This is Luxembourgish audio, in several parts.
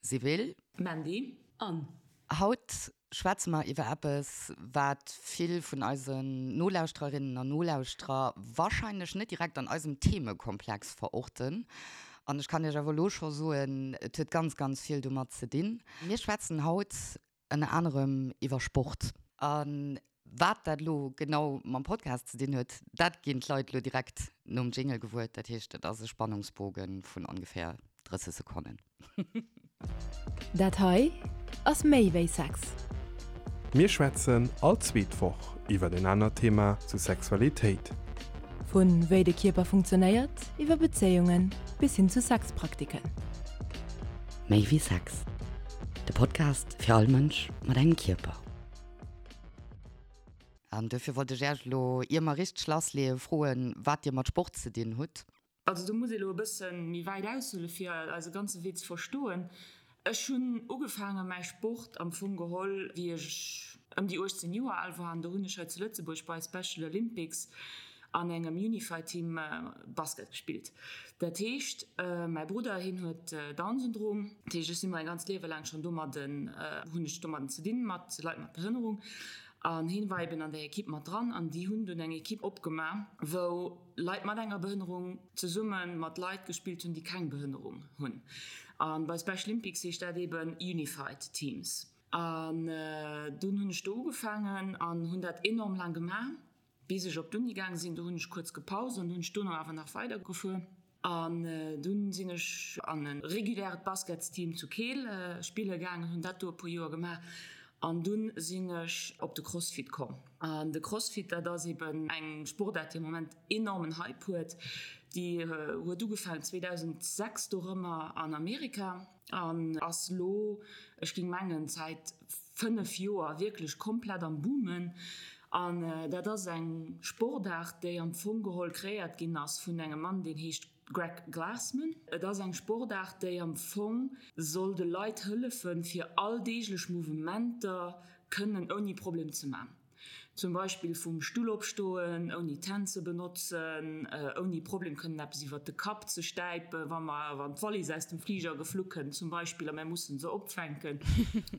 Sibylle. Mandy. Anne. Haut schwätze mer iwwer eppes, wat vill vun eisen Nolauschtererinnen an Nolauschterer warscheinlech net direkt an eisem Themekomplex verorten. An ech kann Iech awer elo scho soen, et huet ganz, ganz vill domat ze dinn. Mir schwätzen haut ënner anerem iwwer Sport. A wat dat elo genau mam Podcast ze dinn huet, dat ginn d'Leit elo direkt nom Jingle gewuer. Dat heescht, et ass e Spannungsboge vun ongeféier 30 Sekonnen. Dat hei ass méi wéi Sex. Mir schwätzen all zweet Woch iwwer en anert Thema zu Sexualitéit. Vu wéi de Kierper funktionéiert, iwwer Bezéiungen bis hin zu Sexpraktiken. Méi wéi Sex, de Podcast fir all Mënsch mat engem Kierper. An duerfir wollt ech Äech elo, ier mer richteg lassleeën, froen, wat Dir mat Sport ze dinn hutt. Also do muss ee lo e bësse méi wäit aushuele fir eise ganze Wee ze verstoen. Ech hunn ugefaange mäi Sport am Fong geholl wéi ech ëm déi 18 Joer al war an do hunn ech hei zu Lëtzebuerg bei Special Olympics an engem Unified Team Basket gespillt. Dat heescht mäi Brudder hien huet Down-Syndrom, dat heescht ech si mäi ganzt Liewe laang schonn domadden, hunn ech domadden ze dinn mat Leit mat Behënnerung an hien war eben an där Ekipp mat dran an déi hunn dunn eng Ekipp opgema wou Leit mat enger Behënnerung zesumme mat Leit gespillt hunn, déi keng Behënnerung hunn. A bei Special Olympics heescht dat eben Unified Teams. An dunn hunn ech do ugefaangen an hunn dat enorm laang gemaach, bis ech op d'Uni gaange sinn. Do hunn ech kuerz gepaust an hunn ech dono awer nach weidergefuer. An dunn sinn ech an e reguläret Basketsteam zu Keel spille gaangen, hunn dat do e puer Joer gemaach. An dunn sinn ech op de Crossfit komm. An de Crossfit, dat ass eben eng Sportaart, déi am Moment enormen Hype huet. Déi huet ugefaangen 2006 dorëmmer an Amerika an ass lo, ech géing mengen, säit 5 Joer wierklech komplett am Boomen. An dat ass eng Sportaart, déi am Fong geholl kreéiert ginn ass vun engem Mann, deen heescht Greg Glassman, Et ass eng Sportaart, déi am Fong soll de Leit hëllefen, fir alldeeglech Mouvementer kënnen ouni Problem ze man. Zum Beispill vum Stull opstoen, ouni d'Hänn ze benotzen, ouni Problem kënnen eppes iwwert de Kapp ze stäipen, wa mer, wann d'Wallis aus dem Fliger geflu kënnt zum Beispill a mär mussen se opfänken,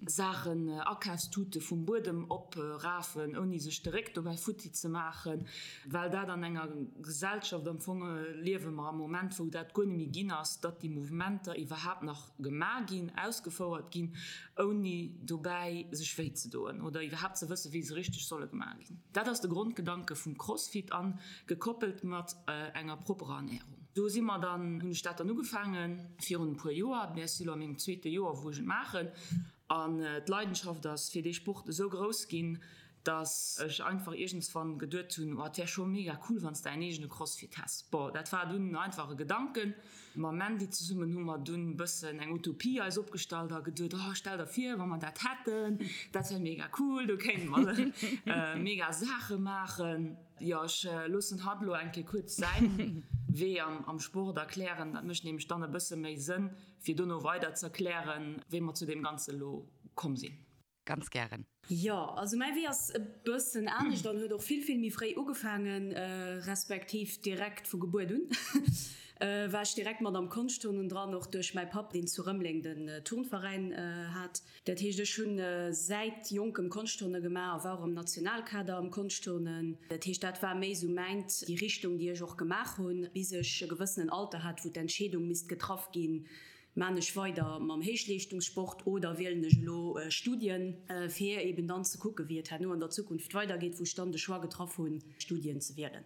Saachen, Akafstute vum Buedem oprafen, ouni sech de Réck dobäi futti ze maachen. Well dat an enger Gesellschaft am Fong liewe mer am Moment, wou dat guer net méi ginn ass, datt déi Mouvementer iwwerhaapt nach gemaach ginn, ausgefouert ginn, ouni dobäi sech wéi ze doen oder iwwerhaapt ze wëssen, wéi se richteg solle gemaach ginn. Dat ass de Grondgedanke vum Crossfit a gekoppelt mat enger propperer Ernährung. Do si mer dann, hunn ech dat dann ugefaange virun e puer Joer, mä ech si lo a mengem zweete Joer, wou ech et maachen an d'Leidenschaft ass fir dee Sport esou grouss ginn, dass ech einfach iergendswann geduet hunn, oh et wär scho mega cool wann s de däin eegene Crossfit häss. Bon, dat war dunn einfach e Gedanken. Mam Mandy zesummen hu mer dunn e bëssen eng Utopie eis opgestallt a geduet, oh stell der vir wa mer dat hätten, dat wär mega cool, do kéinte mer mega Saache maachen. Jo, ech loossen hatt elo eng Kéier kuerz säin Wee am Sport erklären, dat mécht nämlech dann e bësse méi Sënn fir dono weider z'erklären, wéi mer zu deem Ganze elo komm sinn. Ganz gären. Jo, also mäi Wee ass e bëssen anescht an huet och vill, vill méi fréi ugefaangen, respektiv direkt vu Gebuert un war ech direkt mat am Konschtturnen dran, och duerch mäi Papp, deen zu Rëmeleng den Turnveräin hat. Dat heescht, ech hunn säit jonkem Konschtturne gemaach a war och am Nationalkader am Konschtturnen. Dat heescht, dat war méi esou mäint, déi Richtung, déi ech och gemaach hunn, bis ech e gewëssenen Alter hat, wou d'Entscheedung misst getraff ginn, Maan ech weider mam Héichleeschtungssport oder wielen ech elo Studien, fir eben dann ze kucken, wéi et herno an der Zukunft weidergeet, wou ech dann de Choix getraff hunn, Studien ze wielen.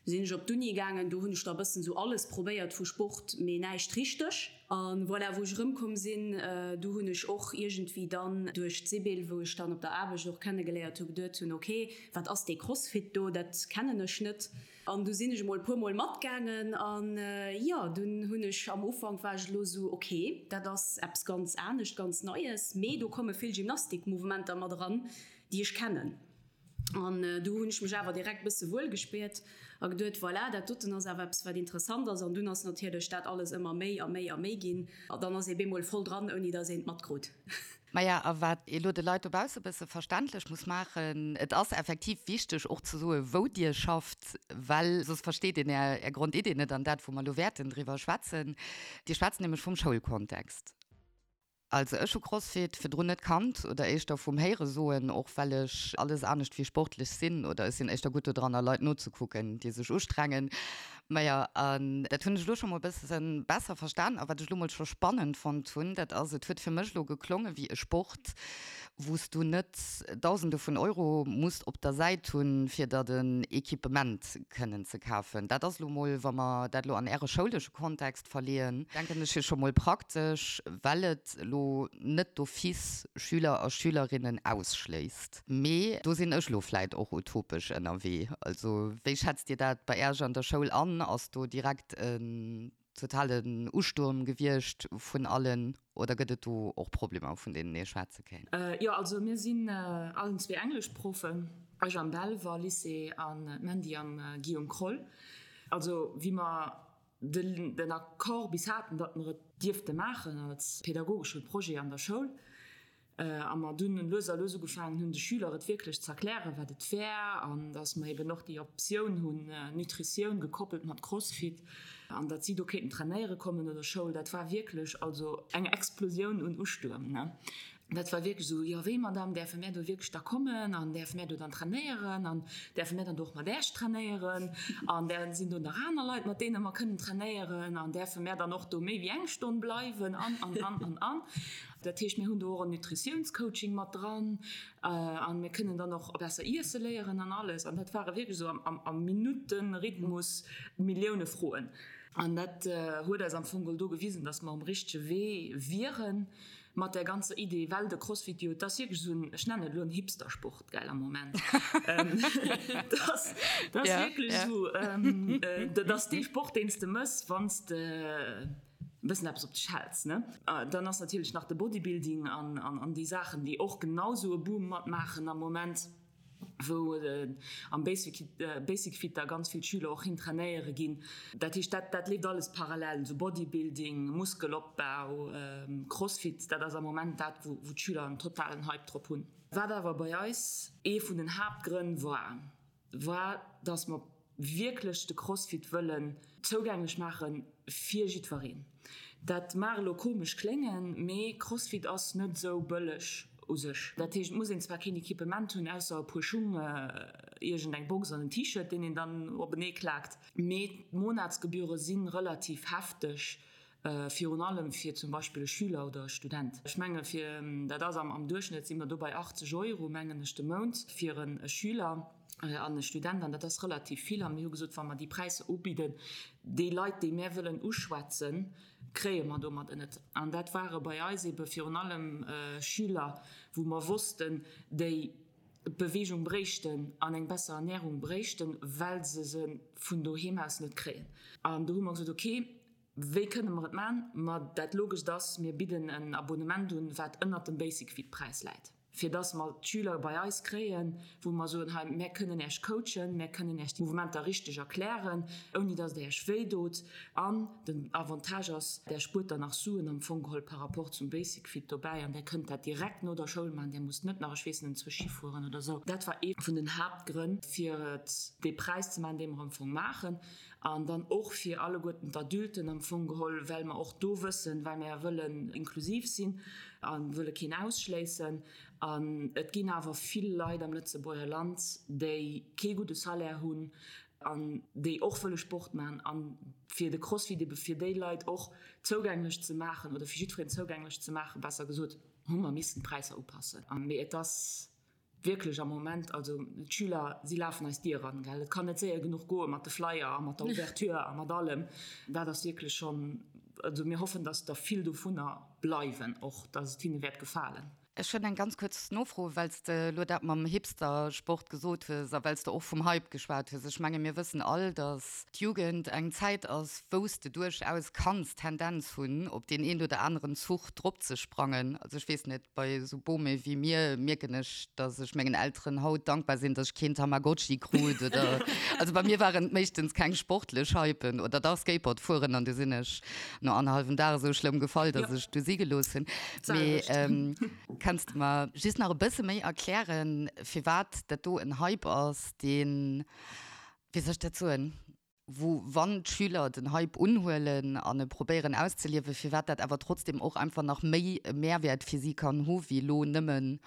Du sinn ech op d'Uni gaangen, do hunn ech da e bëssen esou alles probéiert vu Sport, mee näischt richteg. A voilà, wou ech erëmkomm sinn, du hunn ech och iergendwéi dann duerch d'Sibylle, wou ech dann op der Aarbecht och kennegeléiert hu, geduet hunn, ok, wat ass dee Crossfit do, dat kennen ech net. An du sinn ech emol e puer mol matgaangen an jo, dunn hunn ech, am Ufank war ech elo esou, ok, dat ass eppes ganz anescht, ganz Neies, mee do komme vill Gymnastikmouvementer mat eran, déi ech kennen. An du hunn ech mech awer direkt bësse wuel gespiert a geduet, voilà, dat doten ass awer eppes, wat interessant ass. An dunn ass natierlech dat alles ëmmer méi a méi a méi ginn a dann ass ee bemol voll dran, ouni datt een et matkrut. Maja, a wat ee lo de Leit dobausse bësse verständlech muss maachen, et ass effektiv wichteg och ze soen, wou Dir schafft, well soss versteet een Är, Är Grondidee net an dat, wou mer elo wäerten driwwer schwätzen. Dir schwätzt nämlech vum Schoulkontext. Also ech hu Crossfit virdrun net kannt oder éischter vum Héiere soen, och well ech alles anescht wéi sportlech sinn oder ech sinn éischter gutt dodranner Leit nozekucken déi sech ustrengen. Majo an dat hunn ech elo scho mol bësse besser verstan a wat ech elo mol scho spannend fonnt hunn, dat ass, et huet fir mech elo geklonge wéi e Sport wou s du net Dausende vun Euro muss op der Säit hunn fir der den Equipement kënnen ze kafen. Dat ass elo mol, wa mer dat elo an äre schoulesche Kontext verleeën, denken ech, jo scho mol praktesch, well et elo net d'office Schüler a Schülerinnen ausschléisst. Mee do sinn ech elo vläit och utopesch ënnerwee. Also wéi schätzt Dir dat bei Äerch an der Schoul an? Ass do direkt en totalen Ustuerm gewiescht vun allen oder gëtt et do och Problemer, vun deenen ee schwätze kéint? Jo, also mir sinn allen zwee Engleschproffen, ech am Belval Lycée an d'Mandy am Guillaume Kroll. Also wéi mer den Accord bis haten, datt mer et dierfte maachen als pädagogesche Projet an der Schoul, a mer dunn lues a lues ugefaangen hunn, de Schüler et wierklech ze erklären, wat et wär, an datt mer eben och déi Optioun hunn, Nutritioun gekoppelt mat Crossfit, an datt si do kéinten trainéiere kommen no der Schoul, dat war wierklech also eng Explosioun un Ustuerm. Dat war wierklech esou, Jo, wéi, Madame, däerfe mär do wierklech da kommen an däerfe mär do dann trainéieren an däerfe mär dann do och mat Äech trainéieren an däer sinn do nach aner Leit, mat deene mer kënnen trainéieren an däerfe mär dann och do méi wéi eng Stonn bleiwen an, an, an, an, an. Dat heescht, mir hunn do och en Nutritiounscoaching mat dran an mir kënnen dann och besser iesse léieren an alles. An dat ware wierklech esou am, am Minutten-Rhythmus Millioune Froen. An dat huet eis am Fong geholl do gewisen, dass mer um richtege Wee wieren. Mat där ganzer Idee, well de Crossfit jo, et ass wierklech esou en, ech nennen et elo en Hipstersport, gell, am Moment. Dat ass, dat ass wierklech esou, dat ass dee Sport, deen s de mëss, wann s de e bëssen eppes op dech häls, ne? Dann ass natierlech nach de Bodybuilding an, an déi Saachen, déi och genau esou e Boom matmaachen am Moment. wou am Basic Fit da ganz vill Schüler och hin trainéiere ginn. Dat heescht, dat dat leeft alles parallel, esou Bodybuilding, Muskelopbau, Crossfit, dat ass am Moment dat, wou wou d'Schüler en totalen Hype drop hunn. Wat awer bei eis ee vun den Haaptgrënn war, war, dass mer wierklech de Crossfit wëllen zougänglech maache fir jiddwereen. Dat mag elo komesch kléngen, mee Crossfit ass net esou bëlleg u sech. Dat heescht, et muss een zwar keen Equipement hunn, ausser e puer Schung, iergend eng Box an en T-Shirt, deen een dann openee klaakt, mee d'Monatsgebühre si relativ hefteg Virun allem fir zum Beispill e Schüler oder e Student. Ech menge fir, dat ass am Duerchschnëtt si mer do bei 80 Euro, mengen ech, de Mount fir e Schüler an e Student. An dat ass relativ vill. A mir hu gesot, wa mer déi Präisser ubidden, déi Leit, déi mär wëllen uschwätzen, kréie mer domadder net. An dat ware bei eis ebe virun allem Schüler, wou mer wossten, déi Beweegung bréichten an eng besser Ernärung bréichten, well se se vun doheem aus net kréien. An do hu mer gesot, okay, Wéi kënne mer et man? Ma dat Logescht ass, mir bidden en Abonnement un, wat ënnert dem Basic-Fit-Präis läit, fir dass mer d'Schüler bei eis kréien, wou mer soen, hei, mär kënnen Äech coachen, mär kënnen Äech d'Mouvementer richteg erklären, ouni dass et Äech wéi dot. An den Avantage ass, Där spuert dann nach Suen am Fong geholl par rapport zum Basic-Fit dobäi an Där kënnt dat direkt no der Schoul man, Där musst net nach, ech weess net, enzwousch Schi fueren oder esou. Dat war ee vun den Haaptgrënn, fir et dee Präis ze man, dee mer am Fong maachen. An dann och fir alleguerten d'Adulten am Fong geholl, well mer och do wëssen, well mer wëllen inklusiv sinn a wëlle keen ausschléissen. An et ginn awer vill Leit am Lëtzebuerger Land, déi kee gudde Salaire hunn an déi och wëlle Sport maachen. A fir de Crossfit ebe fir déi Leit och zougänglech ze maachen oder fir jiddwereen zougänglech ze maachen, besser gesot, hu mer missen d'Präisser upassen. Mee et ass Wierklech am Moment, also d'Schüler, si lafen eis d'Dier eran, gell. Et kann net séier genuch goe mat de Flyer a mat der Ouverture a mat allem. Dat ass wierklech schonn, also mir hoffen, dass der vill dovunner bleiwen och, dass et hinne wäert gefalen. Ech hunn eng ganz kuerz Nofro, well s de elo dat mam Hipster-Sport gesot hues a well s de och vum Hype geschwat hues. Ech menge mir wëssen all, dass d'Jugend eng Zäit ass, wou s de duerchaus kanns d'Tendenz hunn, op deen een oder aneren Zuch dropzesprangen. Also ech weess net, Bei esou Bome wéi mir mierken ech, dass ech mengen Elteren haut dankbar sinn, dass ech keen Tamagotchi krut oder, also bei mir waren et meeschtens keng sportlech Hypen oder dach Skateboard fueren an du sinn ech no annerhallwem Dag esou schlëmm gefall, dass ech du si gelooss hunn. Mee kanns de mer just nach e bësse méi erklären, firwat dat do en Hype ass, deen, wéi soll ech dat soen? wou wann d'Schüler den Hype unhuelen an e probéieren auszeliewen, firwat dat awer trotzdem och einfach nach méi e Mehrwert fir si kann hu wéi elo nëmmen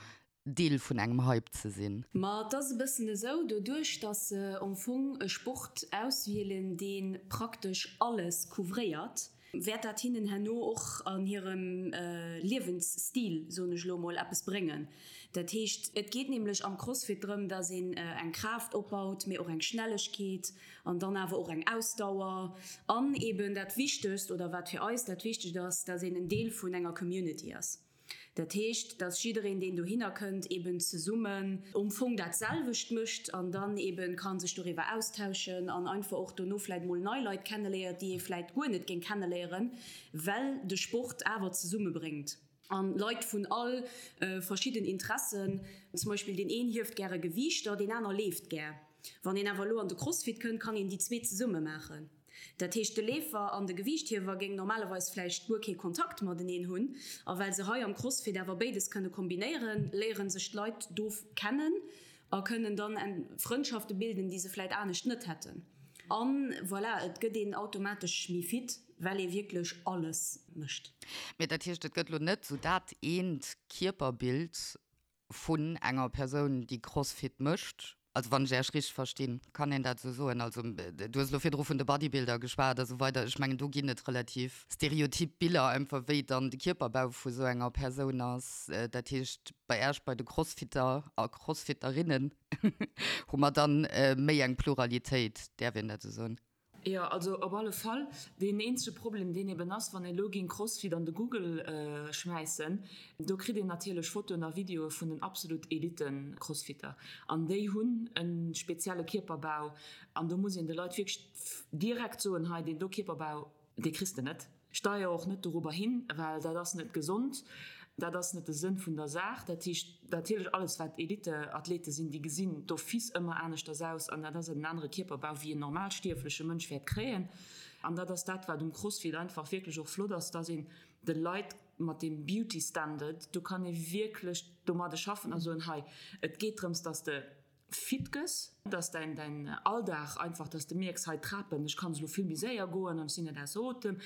Deel vun engem Hype ze sinn. Ma et ass e bëssen esou, doduerch datt se am Fong e Sport auswielen, dee praktesch alles couvréiert, wäert dat hinnen herno och an hirem Liewensstil, soen ech elo emol, eppes bréngen. Dat heescht, et geet nämlech am Crossfit drëm, datt een eng Kraaft opbaut, mee och eng Schnellegkeet an dann awer och eng Ausdauer an eben dat Wichtegst, oder wat fir eis dat Wichtegt ass, datt een en Deel vun enger Community ass. Dat heescht, dass jiddereen, deen dohinner kënnt, eben zesummen um Fong dat selwecht mécht an dann eben ka sech doriwwer austauschen an einfach och dono vläit mol nei Leit kenneléiert, déi ee vläit guer net géing kenneléieren, well de Sport awer zesummebréngt. An Leit vun all verschidden Interessen, zum Beispill deen een hieft gäre Gewiichter, deen aner leeft gär. Wann een awer elo an de Crossfit kënnt, kann een déi zwee zesumme maachen. Dat heescht, de Leefer an de Gewiichthiewer géing normalerweis vläicht guer kee Kontakt mateneen hunn. A well se hei am Crossfit awer béides kënne kombinéieren, léiere sech d'Leit do kennen a kënnen dann Frëndschafte bilden, déi se vläicht anescht net hätten. A voilà, et gëtt een automatesch méi fit, well ee wierklech alles mécht. Mee dat heescht, et gëtt elo net esou dat eent Kierperbild, vun enger Persoun, déi Crossfit mécht, also wann ech Äech richteg verstinn, kann een dat esou soen? Also du hues elo virdru vun de Bodybuilder geschwat a sou weider, ech mengen do ginn et relativ stereotyp Biller einfach, wéi dann de Kierperbau vu sou enger Persoun ass. Dat heescht bei Äech, bei de Crossfitter a Crossfitterinnen hu mer dann méi eng Pluralitéit, däerf een dat esou soen? Jo, also op alle Fall. Deen eenzege Problem, deen eben ass, wann ee lo géing Crossfit an de Google schmäissen, do kritt een natierlech Fotoen a Videoe vun den absolut Elite-Crossfitter. An déi hunn e spezielle Kierperbau. An do muss een de Leit wierklech direkt soen, hei deen do Kierperbau, dee kriss de net. Steier och net dorobber hin, well dat ass net gesond, dat ass net de Sënn vun der Saach. Dat heescht natierlech, alles wat Eliteathlete sinn, déi gesinn d'office ëmmer aneschters aus an dat ass en anere Kierperbau wéi en normalstierfleche Mënsch wäert kréien. An dat ass dat, wat um Crossfit einfach wierklech och flott ass, dass een de Leit mat deem Beauty Standard, do kann ee wierklech domadde schaffen a soen, hei et geet drëms, dass de fit gëss, dass däin däin Alldag einfach, dass de mierks, hei d'Trapen, ech kann se elo vill méi séier goen an ech sinn net ausser Otem,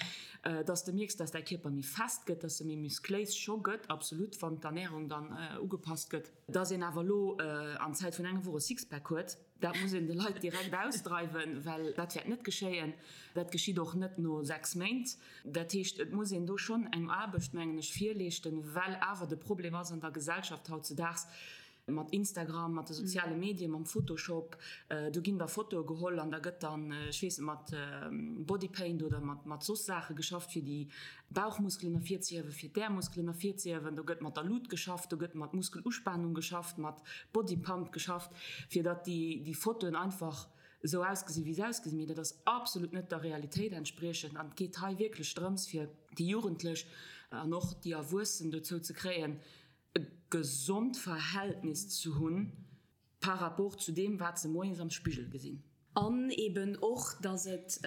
dass de mierks, dass däi Kierper méi fest gëtt, dass e méi muscléis scho gëtt, absolut, wann d'Ernärung dann ugepasst gëtt. Dass een awer elo an Zäit vun enger Woch e Sixpack huet, dat muss een de Leit direkt ausdreiwen, well dat wäert net geschéien. Dat geschitt och net no 6 Méint. Dat heescht, et muss een do schonn eng Aarbecht, mengen ech, virleeschten, well awer de Problem ass an der Gesellschaft hautzedaags, Mat Instagram, mat de soziale Medien, mam Photoshop, do ginn da Fotoe geholl an da gëtt dann, ech weess net, mat Bodypaint oder mat mat soss Saache geschafft, fir déi Bauchmuskelen ervirzehiewen, fir d'Äermuskelen ervirzehiewen. Do gëtt mat der Lut geschafft, do gëtt mat Muskeluspanung geschafft, mat Bodypump geschafft, fir datt déi déi Fotoen einfach esou ausgesinn, wéi se ausgesinn. Mee dat ass absolut net der Realitéit entspriechend an et geet hei wierklech drëms, fir déi Jugendlech an och déi Erwuessen dozou ze kréien, e gesond Verhältnis ze hunn par rapport zu deem, wat se moies am Spigel gesinn. An eben och, dass et,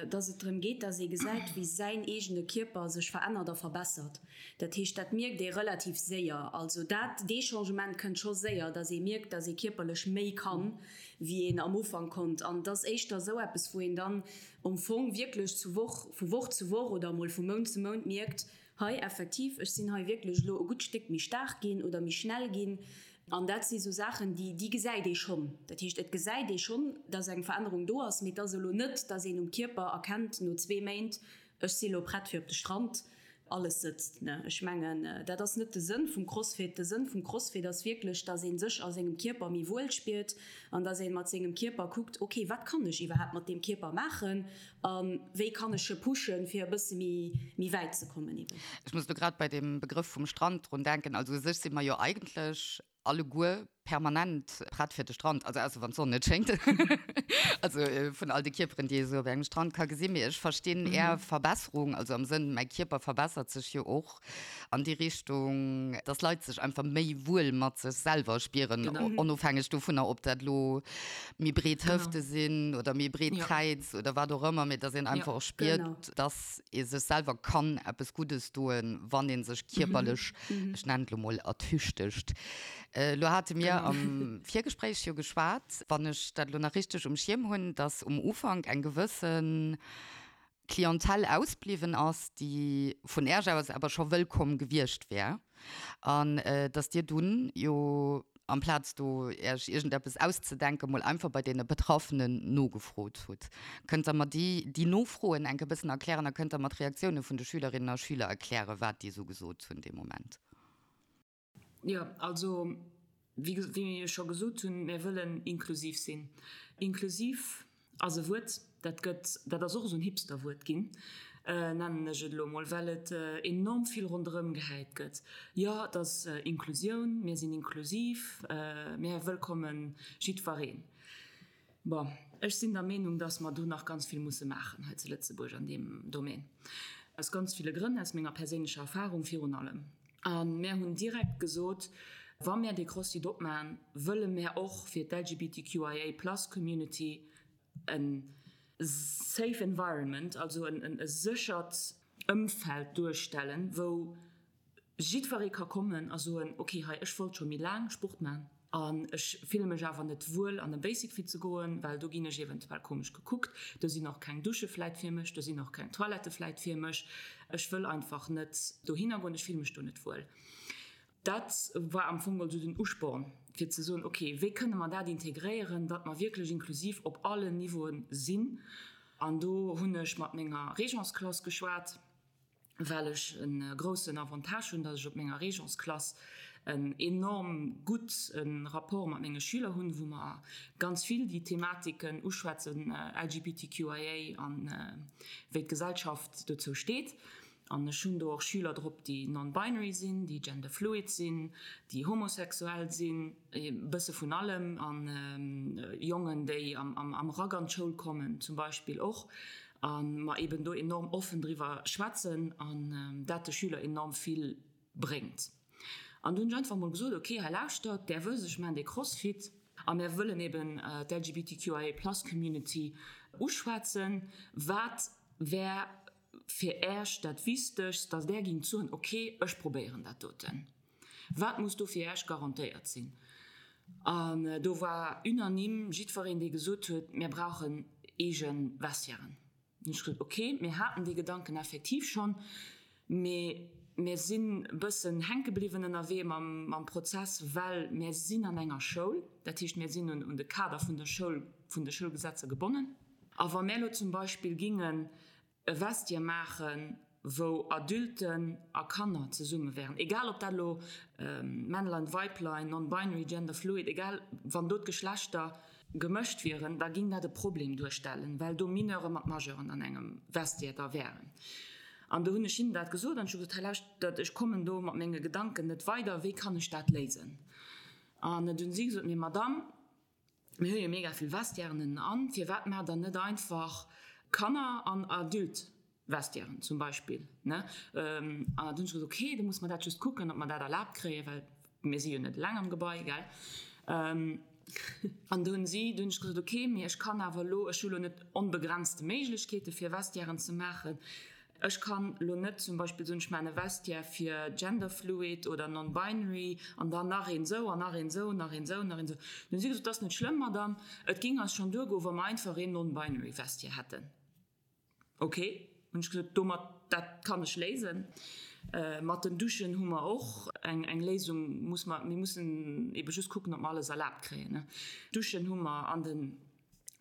dass et drëm geet, dass ee gesäit, wéi säin eegene Kierper sech verännert a verbessert. Dat heescht, dat mierkt ee relativ séier. Also dat, dee Changement kënnt scho séier, dass ee mierkt, dass ee kierperlech méi kann, wéi een am Ufank konnt. An et ass éischter esou eppes, wou een dann am Fong wierklech zu Woch, vu Woch zu Woch oder emol vu Mount zu Mount mierkt, Hei, effektiv, ech sinn hei wierklech elo e gutt Stéck méi staark ginn oder méi schnell ginn. An dat si sou Saachen, déi, déi gesäit ee schonn. Dat heescht, et gesäit ee schonn, dass eng Verännerung do ass, mee et ass elo net, dass een um Kierper erkennt no zwee Méint, ech si elo prett fir op de Strand, alles sëtzt. Ne, ech mengen, dat ass net de Sënn vum Crossfit. De Sënn vum Crossfit ass wierklech, dass ee sech a sengem Kierper méi wuel spiert an dass ee mat sengem Kierper kuckt, okay, wat kann ech iwwerhaapt mat deem Kierper maachen? A wéi kann ech e pushen, fir e bësse méi, méi wäit ze kommen eben? Ech muss elo grad bei deem Begrëff vum Strand drun denken. Also u sech si mer jo eigentlech alleguer permanent prett fir de Strand, also ausser wann d'Sonn net schéngt, also vun all de Kierperen, déi ee sou op engem Strand ka gesinn. Mee ech verstinn Är Verbesserung, also am Sënn, mäi Kierper verbessert sech jo och an déi Richtung, dass Leit sech einfach méi wuel mat sech selwer spieren, onofhängeg dovunner, ob dat elo méi breet Hëfte sinn oder méi breet Kräiz oder wat och ëmmer, mee dass een einfach och spiert, dass ee sech selwer kann eppes Guddes doen, wann ee sech kierperlech, ech nennen et elo mol, ertüchtegt. Elo hate mir. mir am Virgespréich jo geschwat, wann ech dat elo nach richteg um Schierm hunn, dass um Ufank eng gewësse Clientèle ausbliwwen ass, déi vun Äerch aus awer scho wëllkomm gewiescht wär, an dass Dir dunn jo, amplaz do Äerch iergendeppes auszedenken, mol einfach bei deene Betraffenen nogefrot hutt. Kënnt Der mer déi, déi Nofroen enk e bëssen erklären a kënnt Der mer d'Reaktioune vun de Schülerinnen a Schüler erklären, wat déi esou gesot hunn dee Moment? Jo, also wéi wéi ech scho gesot hunn, mir wëllen inklusiv sinn. Inklusiv ass e Wuert, dat gëtt, dat ass och esou en Hipsterwuert ginn, nennen ech et elo emol, well et enorm vill ronderëm gehäit gëtt. Jo, et ass Inklusioun, mir sinn inklusiv, mir wëllkomme jiddwereen. Bon, ech sinn der Meenung, dass mer do nach ganz vill musse maachen hei zu Lëtzebuerg an deem Domaine. Aus ganz ville Grënn, aus menger perséinlecher Erfahrung virun allem. A mär hunn direkt gesot, wa mär dee CrossFit opmachen, wëlle mär och fir d'LGBTQIA plus Community e safe environment, also e séchert Ëmfeld duerstellen, wou Jiddweree ka kommen a soen, ok, hei, ech wollt scho méi laang Sport man an ech fille mech awer net wuel an e Basic Fit ze goen, well do ginn ech eventuell komesch gekuckt, do sinn och keng Dusche vläit fir mech, do sinn och keng Toilettë vläit fir mech, ech wëll einfach net dohinner goen, ech fille mech do net wuel. Dat war am Fong also den Usporn, fir ze soen, ok, wéi kënne mer dat integréieren, datt mer wierklech inklusiv op allen Niveauen sinn. An do hunn ech mat menger Régence-Klass geschwat. well ech e groussen Avantage hunn, datt ech op menger Régence-Klass en enorm gutt Rapport mat menge Schüler hunn, wou mer ganz vill déi Thematiken uschwätzen, LGBTQIA an wéi d'Gesellschaft dozou steet. An ech hunn do och Schüler drop, déi non-binary sinn, déi gender-fluid sinn, déi homosexuell sinn, e bësse vun allem, an Jongen, déi am Rack an d'Schoul kommen zum Beispill och. A mer eben do enorm offen driwwer schwätzen an dat de Schüler enorm vill bréngt. An du hunn ech einfach mol gesot, ok, hei lauschtert, där wësst, ech maachen dee Crossfit a mir wëllen eben d'LGBTQIA plus Community uschwätzen. Wat wär fir Äech dat Wichtegst, datt Där gingt soen, ok, ech probéieren dat doten? Wat muss do fir Äech garantéiert sinn? An do war unanime jiddwereen, dee gesot huet, Mir brauchen eege Vestiairen. Hunn ech gesot, Okay, mir haten dee Gedanken effektiv schonn, mee mir sinn e bëssen hänke bliwwen ënnerwee mam Prozess, well mir sinn an enger Schoul. Dat heescht, mir sinn un de Kader vun der Schoul, vun de Schoulgesetzer gebonnen. A wa mir elo zum Beispill gingen e Vestiaire maachen, wou Adulten a Kanner zesumme wären, egal ob dat elo Männlein, Weiblein, non-binary, gender fluid, egal, wann do d'Geschlechter gemëscht wieren, da ging dat e Problem duerstellen, well do Mineure mat Majeuren an engem Vestiaire da wären. An do hunn ech hinnen dat gesot an ech hu gesot, hei lauschtert, ech kommen do mat menge Gedanken net weider, wéi kann ech dat léisen? An du hunn si gesot, mee Madame, Mir hu jo mega vill Vestiairen ënnen an, firwat maacht der net einfach Kanner an Adult-Vestiairen zum Beispill, ne? An dann hunn ech gesot, okay, da muss mer dat just kucken, ob mer dat erlaabt kréien, well mir si jo net eleng am Gebai, gell? An do hunn si, do hunn ech gesot, okay, mee ech kann awer elo, ech hu lo net onbegrenzte Méiglechkeete fir Vestiairen ze maachen. Ech kann lo net zum Beispill soen, ech maachen e Vestiaire fir genderfluid oder non-binary an dann nach een esou an nach een esou, nach een esou, nach een esou. Dann hu si gesot, dat ass net schlëmm, Madame, et géing eis schonn duergoen, wa mer einfach een non-binary Vestiaire hätten. Ok, hunn ech gesot, domat, dat kann ech léisen. Mat den Duschen hu mer och eng eng Léisung, muss mer, mir mussen ebe just kucken, ob mer alles erlaabt kréien. Duschen hu mer an den.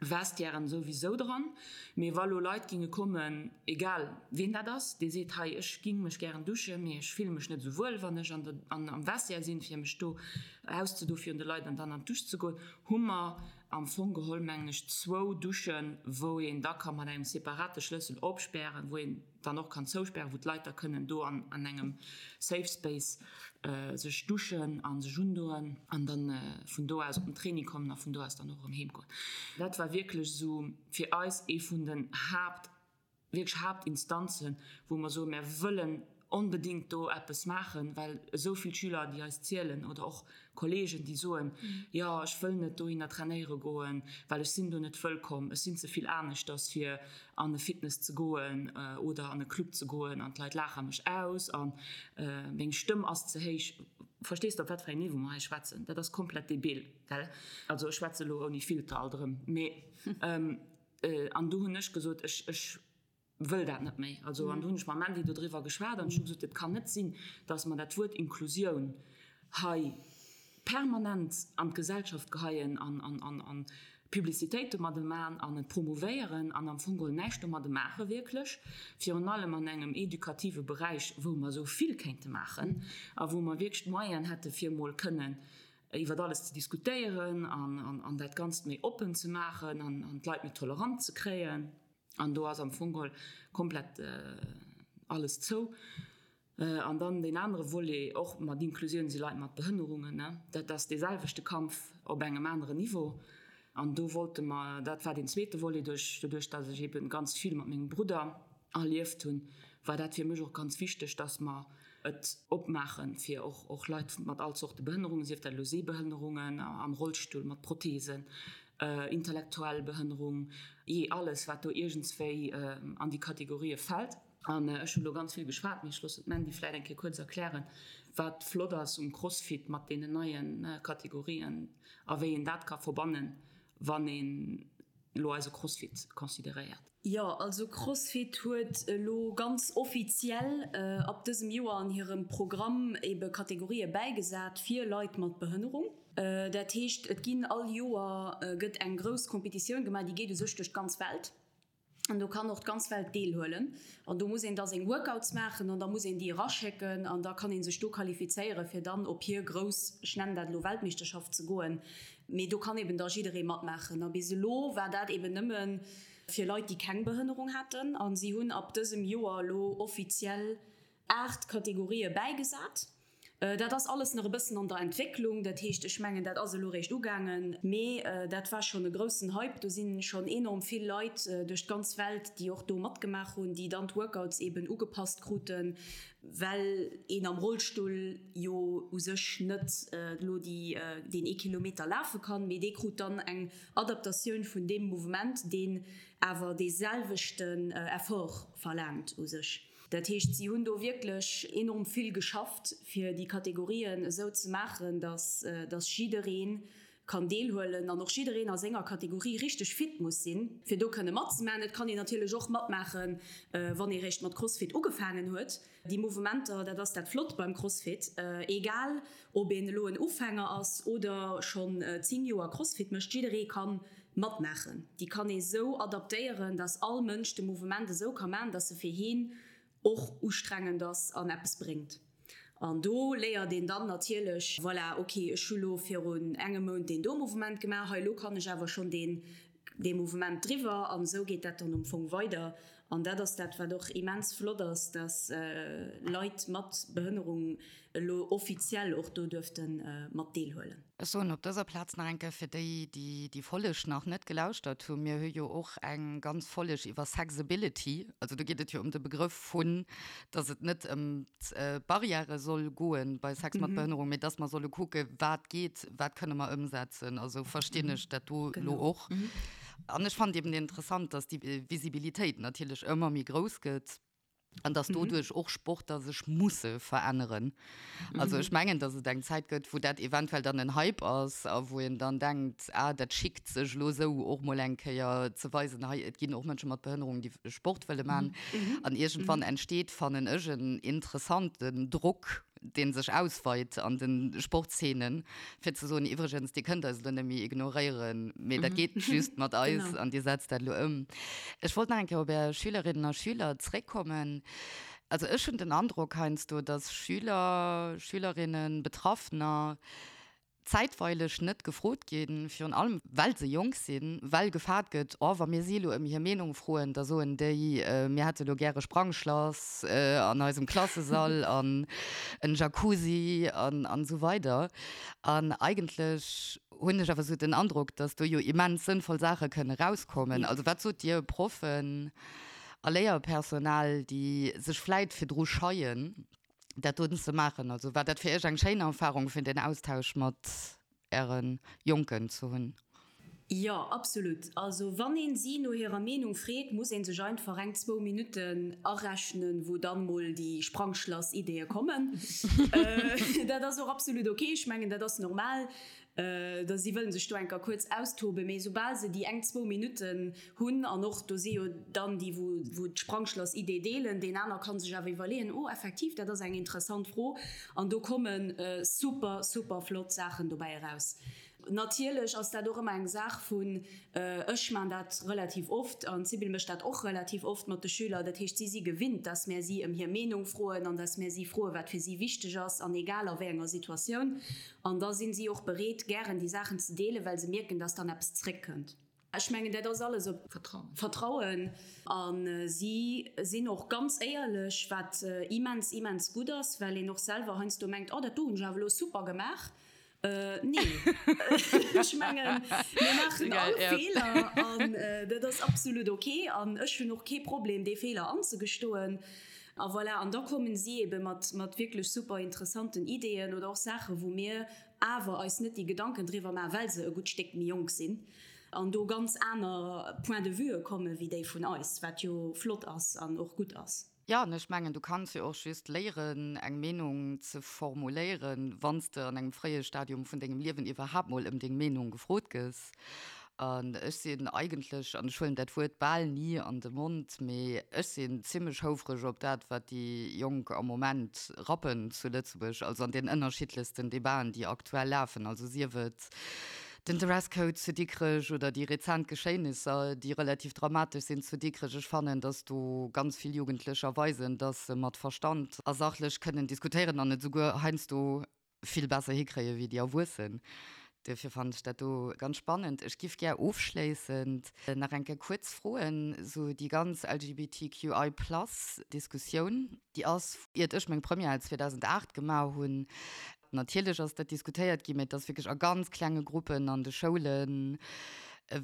Vestiairen souwisou dran, mee wa lo Leit ginge kommen, egal ween dat ass, dee seet, hei ech ging mech gären duschen, mee ech fille mech net esou wuel wann ech an der an am Vestiaire sinn, fir mech do auszedo virun de Leit an dann an d'Dusch ze goen, hu mer am Fong geholl mengen ech zwou Duschen, wou een da ka mat engem separate Schlëssel opspären, wou een dann och kann zouspären, wou d'Leit da kënnen do an an engem Safe Space sech duschen a sech undoen an dann vun do aus op den Training kommen a vun do aus dann och erëm heem goen. Dat war wierklech esou fir eis ee vun den Haapt, wierklech Haaptinstanzen, wou mer soen, mär wëllen onbedéngt do eppes maachen, well esou vill Schüler, déi eis zielen oder och Kollegen, déi soen, jo ech wëll net dohinner trainéiere goen, well ech sinn do net wëllkomm, ech sinn ze vill aneschters fir an e Fitness ze goen oder an e Club ze goen an d'Leit laache mech aus a meng Stëmm ass ze héich. Verstees de op wat fir engem Niveau mer hei schwätzen? Dat ass komplett debil, gell? Also ech schwätze elo ouni Filter alt erëm, mee an du hunn ech gesot, ech, ech wëll dat net méi. Also an du hunn ech mam Mandy dodriwwer geschwat an ech hu gesot, et kann net sinn, datt mer dat Wuert Inklusioun hei permanent an d'Gesellschaft geheien an, an, an, an Publicitéit domadde man an et promouvéieren an am Fong geholl näischt domadde maache wierklech, virun allem an engem edukative Beräich, wou mer esou vill kéinte maachen a wou mer wierklech d'Moyenen hätte fir emol kënnen iwwer alles ze diskutéieren an, an dat Ganzt méi oppen ze maachen an, an d'Leit méi tolerant ze kréien. An do ass am Fong geholl komplett alles zou. An dann deen anere Volet, och mat Inklusioun, si Leit mat Behënnerungen. Dat ass dee selwechte Kampf op engem aneren Niveau. An do wollte mer, dat war deen zweete Volet, duerch, doduerch datt ech eebe ganz vill mat mengem Brudder erlieft hunn, war dat fir mech och ganz wichteg, datt mer et opmaache fir och, och Leit mat all Zorte Behënnerungen, sief dat elo Sehbehënnerungen, am Rollstull, mat Protheesen, intellektuell Behënnerung, jee alles wat do iergendswéi an déi Kategorië fält. An ech hu lo ganz vill geschwat, mee ech loossen d'Mandy vläit eng Kéier kuerz erklären, wat flott ass um Crossfit mat deenen neie Kategorien a wéi een dat ka verbannen, wann een elo eise Crossfit consideréiert. Jo, also Crossfit huet elo ganz offiziell ab dësem Joer an hirem Programm ebe Kategorië bäigesat fir Leit mat Behënnerung. Dat heescht, et ginn all Joer gëtt eng grouss Competitioun gemaach, déi geet u sech duerch d'ganz Welt. An do kann och d'ganz Welt deelhuelen. An do muss een da seng Workouts maachen an da muss een déi eraschécken an da kann ee sech do qualifizéieren, fir dann op hir grouss, ech nennen dat elo Weltmeeschterschaft ze goen. Mee do kann eben da jidderee matmaachen. A bis elo war dat eben nëmme fir Leit, déi keng Behënnerung haten. A si hunn ab dësem Joer elo offiziell 8 Kategorië bäigesat. Dat ass alles nach e bëssen an der Entwécklung. Dat heescht, ech mengen, dat ass elo réischt ugaangen. Mee dat war schonn e groussen Hype. Do si schonn enorm vill Leit duerch d'ganz Welt, déi och do matgemaach hunn, déi dann d'Workouts eben ugepasst kruten, well een am Rollstull jo u sech net elo déi deen ee Kilometer lafe kann, mee dee krut dann eng Adaptatioun vun deem Mouvement, deen awer dee selwechten Effort verlaangt u sech. Dat heescht, si hunn do wierklech enorm vill geschafft, fir déi Kategorien esou ze maachen, datt datt jidderee kann deelhuelen an och jiddereen a senger Kategorie richteg fit muss sinn, fir do kënne matzemaachen. Et kann een natierlech och matmaachen, wann ee réischt mat Crossfit ugefaangen huet. Déi Mouvementer, dat ass dat Flott beim Crossfit, egal ob een elo en Ufänger ass oder schonn 10 Joer Crossfit mécht, jidderee ka matmaachen. Déi kann ee sou adaptéieren, dass all Mënsch de Mouvement esou ka maachen, dass e fir heen och ustrengend ass an eppes bréngt. An do léiert een dann natierlech, voilà, ok, ech hu lo virun engem Mount deen do Mouvement gemaach, hei elo kann ech awer schonn deen dee Mouvement driwwer. An esou geet dat dann am Fong weider. An dat ass dat, wat och immens flott ass, dass Leit mat Behënnerung elo offiziell och do duerfte mat deelhuelen. Ech soen op dëser Plaz nach eng Kéier fir déi, déi déi Folleg nach net gelauschtert hunn, Mir hu jo och eng ganz Folleg iwwer Sexability. Also do geet et jo ëm de Begrëff vun, dass et net ëm d'Barrièrë soll goen bei Sex mat Behënnerung, mee dass mer solle kucke wat geet, wat kënne mer ëmsetzen. Also verstinn ech dat do elo och. An ech fannen eben interessant, dass déi Visibilitéit natierlech ëmmer méi grouss gëtt. An dass doduerch och Sportler sech musse veränneren. Also ech mengen, dass et eng Zäit gëtt, wou dat eventuell dann en Hype ass a wou een dann denkt, ah, dat schickt sech elo esou och mol eng Kéier ze weisen, hei et ginn och Mënsche mat Behënnerung, déi Sport wëlle man. An iergendwann entsteet, fannen ech, en interessanten Drock, dee sech ausweit an de Sportszenen, fir ze soen, iwwregens, Dir kënnt eis elo net méi ignoréieren, mee dat geet just mat eis an Dir setzt dat elo ëm. Ech wollt nach eng Kéier op Är Schülerinnen a Schüler zréckkommen. Also ech hunn den Androck heiansdo, dass Schüler, Schülerinnen, Betraffener zäitweileg net gefrot ginn, virun allem well se jonk sinn, well gefaart gëtt, oh wa mir si elo ëm hir Meenung froen, da soen déi, mir hätte elo gäre Sprangschlass an eisem Klassesall an en Jacuzzi an an esou weider. An eigentlech hunn ech awer esou den Androck, datt do jo immens sënnvoll Saache kënne rauskommen. Also wat sot Dir Proffen a Léierpersonal, déi sech vläit virdru scheien, dat doten ze maachen? Also war dat fir Iech eng schéin Erfahrung fir den Austausch mat Äre Jonken ze hunn? Jo, absolut. Also wann een si no hirer Meenung freet, muss een sech einfach eng, zwou Minutten arechnen, wou dann mol déi Sprangschlass-Ideeë kommen. Dat ass och absolut ok, ech mengen dat ass normal, da si wëllen sech do enker kuerz austoben, mee soubal se déi eng, zwou Minutten hunn, an och do si jo dann déi wou wou d'Sprangschlass-Idee deelen, deen aner kann sech awer iwwerleeën, oh effektiv, dat ass eng interessant Fro, an do komme super, super flott Saachen dobäi eraus. Natierlech ass dat och ëmmer eng Saach vun, ech man dat relativ oft an d'Sybil mécht dat och relativ oft mat de Schüler, dat heescht si si gewinnt, dass mär si ëm hir Meenung froen an dass mär si froen, wat fir si wichteg ass an egal a wéi enger Situatioun. An da sinn si och bereet, gären déi Saachen ze deelen, well se mierken, dass dann eppes zréckkënnt. Ech mengen, dat ass alles op Vertrauen. A si sinn och ganz éierlech, wat immens, immens gutt ass, well een och selwer heiansdo mengt, Oh, dat do hunn ech awer elo super gemaach. Nee, ech mengen, mir maachen all Feeler an dat ass absolut ok. An ech hunn och kee Problem, dee Feeler anzegestoen. A voilà, an da kommen si eebe mat wierklech super interessanten Ideeën oder och Saachen, wou mir awer eis net déi Gedanken driwwer maachen, well se e gutt Stéck méi jonk sinn an do ganz aner Point de vueë komme wéi déi vun eis, wat jo flott ass an och gutt ass. Jo, an ech mengen, du kanns jo och just léieren, eng Meenung ze formuléieren, wann s de an engem fréie Stadium vun dengem Liewen iwwerhaapt mol ëm deng Meenung gefrot gëss. An ech sinn eigentlech, an ech huelen dat Wuert bal ni an de Mond, mee ech sinn zimlech houfreg op dat, wat déi Jonk am Moment rappen zu Lëtzebuerg, also an den ënnerschiddlechsten Debaten, déi aktuell lafen, also sief et den Dresscode zu Dikrech oder déi rezent Geschéinisser, déi relativ dramatesch sinn zu Dikrech. Ech fannen, datt do ganz vill Jugendlecher weisen, datt se mat Verstand a sachlech kënnen diskutéieren an et esouguer heiansdo vill besser hikréie wéi déi Erwuessen. Duerfir fannen ech dat do ganz spannend. Ech giff gär ofschléissend nach eng Kéier kuerz froen, sou déi ganz LGBTQI plus Diskussioun, déi ass, iert ech meng Première 2008 gemaach hunn, natierlech ass dat diskutéiert ginn, mä et ass wierklech a ganz klenge Gruppen an de Schoulen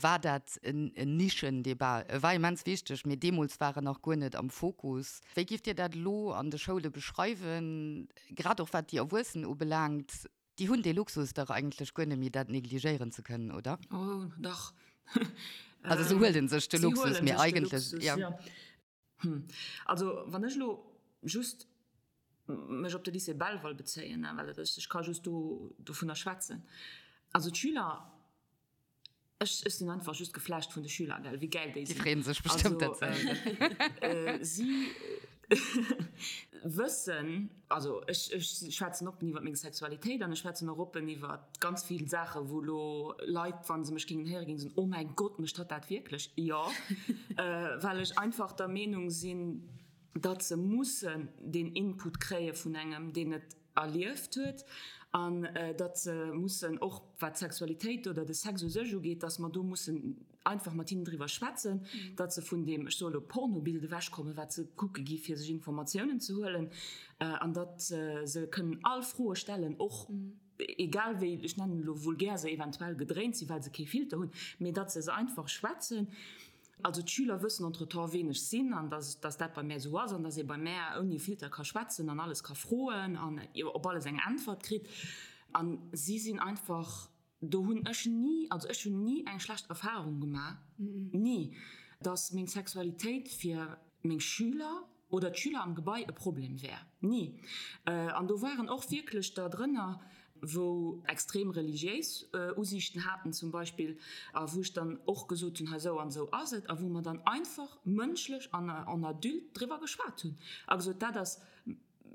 war dat en Nischendebat. E war immens wichteg, mee deemools war en nach guer net am Fokus. Wéi gifft Dir dat elo an de Schoule beschreiwen? Grad och wat déi Erwuessen ubelaangt, déi hunn dee Luxus dach eigentlech guer net méi, dat negligéieren ze kënnen, oder? Oh, dach. Also se huelen sech de Luxus, mee eigentlech, jo. Hm, also wann ech elo just mech op de Lycée Belval bezéien, well ech ka just do dovunner schwätzen, also d'Schüler, Ech sinn einfach just geflasht vun de Schüler, gell, wéi gäil déi sinn. Déi freeën sech bestëmmt dat ze héieren. Si wëssen, also ech schwätzen oppen iwwer meng Sexualitéit an ech schwätzen och oppen iwwer ganz vill Saachen, wou elo Leit, wa se mech géingen héieren, géingen soen, oh mäin Gott, mécht hatt dat wierklech? Jo, well ech einfach der Meenung sinn, datt se mussen deen Input kréie vun engem, deen et erlieft huet an datt se mussen, och wat d'Sexualitéit oder de Sex u sech ugeet, datt mer do mussen einfach mat hinnen driwwer schwätzen, datt se vun deem, ech soe lo, Pornobild ewechkommen, wat se kucke gi fir sech Informatiounen ze huelen, an datt se kënnen all Froe stellen, och egal wéi, ech nennen elo vulgär, se eventuell gedréint sinn, well se kee Filter hunn, mee datt se se einfach schwätzen. Also d'Schüler wëssen entretemps ween ech sinn an dass dass dat bei mär esou ass an dass ee bei mär ouni Filter ka schwätzen an alles ka froen an op alles eng Äntwert kritt. An si sinn einfach, do hunn ech ni, also ech hunn ni eng schlecht Erfahrung gemaach, ni, dass meng Sexualitéit fir meng Schüler oder d'Schüler am Gebai e Problem wär. Ni. An do waren och wierklech der drënner, wou extrem religiéis Usiichten haten zum Beispill, a wou ech dann och gesot hunn, hei esou an esou ass et, a wou mer dann einfach mënschlech an en adulte driwwer geschwat hunn a gesot, dat ass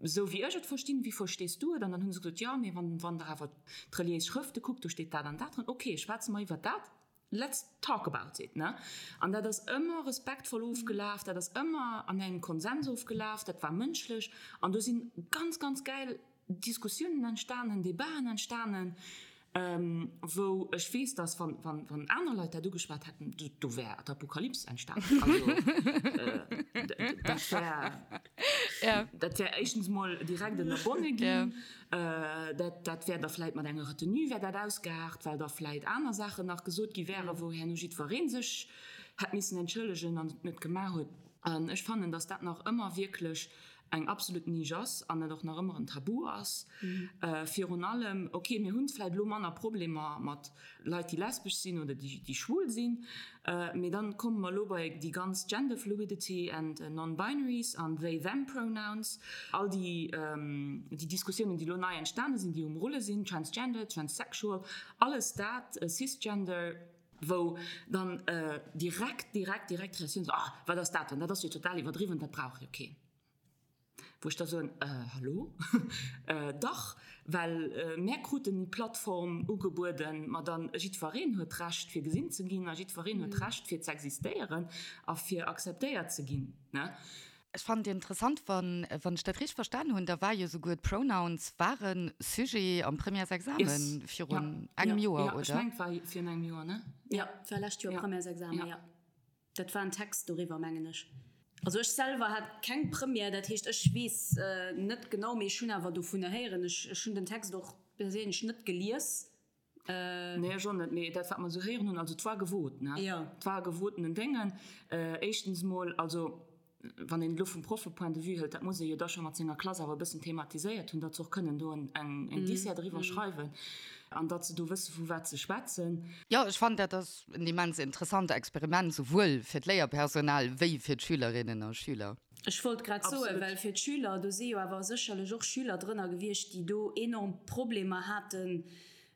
esou wéi ech et verstinn, wéi verstees du et? An dann hu se gesot, jo, mee wann wann Der awer d'reliéis Schrëfte kuckt, do steet dat an dat dran. Okay, schwätze mer iwwer dat. Let's talk about it, ne? An dat ass ëmmer respektvoll ofgelaf, dat ass ëmmer an engem Konsens ofgelaf, dat war mënschlech an do si ganz, ganz gäil Diskussiounen entstanen, Debaten entstanen, wou ech weess, dass wann, wann, wann aner Leit dat ugeschwat hätten, do, do wär d'Apokalyps entstanen. Also, dat wär, dat wär éischtens mol direkt ënnerbonne ginn. Dat, dat wär da vläit mat enger Retenue wär dat ausgeaart, well da vläit aner Saachen nach gesot gi wären, wou herno jiddweree sech hätt missen entschëllegen an et net gemaach huet. An ech fannen, dass dat nach ëmmer wierklech. eng absolut Nisch ass an et och nach ëmmer en Tabu ass. Virun allem, ok, mir hunn vläit elo manner Problemer mat Leit, déi lesbesch sinn oder déi schwul sinn, mee dann komme mer elo bei déi ganz Gender Fluidity and Non-Binaries an they them Pronouns, all déi déi Diskussiounen, déi elo nei entstane sinn, déi um Rulle sinn, Transgender, Transsexual, alles dat, Cisgender. Wou dann direkt, direkt, direkt d'Reaktioun ass, Ah, wat ass dat dann? Dat ass jo total iwwerdriwwen, dat brauch jo keen. Wou ech da soen, Hallo? Dach, well mär kruten déi Plattform ugebueden, ma dann, jiddwereen huet d'Recht fir gesinn ze ginn a jiddwereen huet d'Recht fir z'existéieren a fir akzeptéiert ze ginn, ne? Ech fannen et interessant, wann wann ech dat richteg verstan hunn, da war jo souguer d'Pronouns ware Sujet am Premièresexamen virun engem Joer, oder? Jo, ech mengen et war virun engem Joer, ne? Jo, et war lescht Joer Premièresexamen, jo. Dat war en Text doriwwer, mengen ech. Also ech selwer hat keng Première, dat heescht ech weess net genau, mee ech hunn awer dovunner héieren. Ech hunn den Text och perséinlech net gelies. Nee, ech och net. Mee dat, wat mer esou héieren hunn, also et war gewot, ne? Jo. Et war e gewotenen Déngen. Éischtens emol, also wann een et elo vum Proffe-Point de vue hëlt, dat muss ee jo da scho mat senger Klass awer e bëssen thematiséiert hunn, datt se och kënnen do eng Dissert eriwwer schreiwen an datt se do wësse vu wat se schwätzen. Jo, ech fannen, dat ass en immens interessant Experiment, souwuel fir d'Léierpersonal wéi fir d'Schülerinnen a Schüler. Ech wollt grad soen, well fir d'Schüler, do si jo awer sécherlech och Schüler drënner gewiescht, déi do enorm Problemer haten,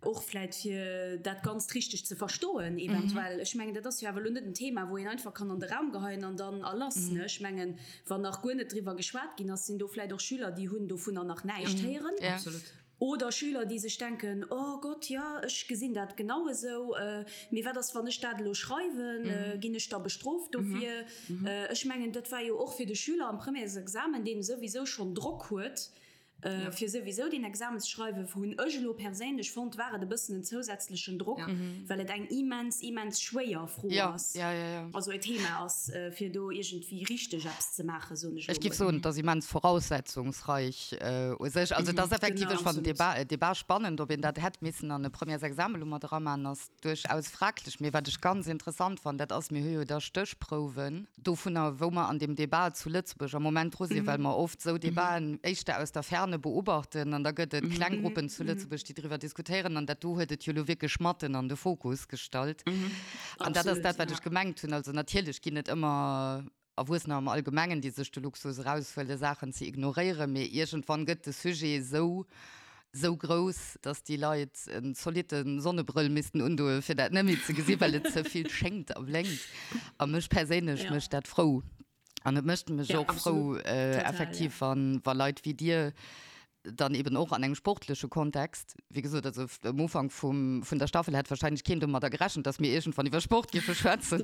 och vläit fir dat Ganzt richteg ze verstoen eventuell. Ech mengen, dat ass jo awer elo net en Thema, wou een einfach kann an de Raum geheien an dann a lass, ne? Ech mengen, wann nach guer net driwwer geschwat ginn ass, sinn do vläit och Schüler, déi hunn dovunner nach näischt héieren. Oder Schüler, déi sech denken, Oh Gott, jo, ech gesinn dat genau esou, mee wat ass, wann ech dat elo schreiwen? Ginn ech da bestrooft dofir? Ech mengen, dat war jo och fir de Schüler am Premièresexamen, deen souwisou schonn Drock huet, fir souwisou deen Examen ze schreiwen, hunn ech elo perséinlech fonnt, war et e bëssen en zousätzlechen Drock, well et eng immens, immens schwéier Fro ass, also e Thema ass, fir do iergendwéi richteg eppes ze maachen, soen ech elo mol. Ech géif soen, et ass immens voraussetzungsreich u sech. Also et ass effektiv, ech fannen den Débat spannend, ob een dat hätt missen an e Premièresexamen elo mat eraman, ass duerchaus fraglech. Mee wat ech ganz interessant fannen, dat ass, mir hu jo da Stéchprouwen dovunner, wou mer an deem Débat zu Lëtzebuerg am Moment dru sinn, well mer oft esou Débaten éischter aus der Ferne beobachten an da gëtt et kleng Gruppen zu Lëtzebuerg, déi driwwer diskutéieren an dat do huet et jo elo wierklech matten an de Fokus gestallt. An dat ass dat, wat ech gemengt hunn. Also natierlech ginn et ëmmer Erwuessener am Allgemengen, déi sech de Luxus eraushuelen, Saachen ze ignoréieren, mee iergendwann gëtt de Sujet esou, esou grouss, dass déi Leit en zolitte Sonnebrëll missten undoen, fir dat net méi ze gesinn, well et ze vill schéngt a blénkt. A mech perséinlech mécht dat frou. An et mécht mech och frou, effektiv, wa Leit wéi dir dann eben och an engem sportleche Kontext, wéi gesot, also um Ufank vum, vun der Staffel hätt wahrscheinlech keen domadder gerechent, dass mir iergendwann iwwer Sport géife schwätzen,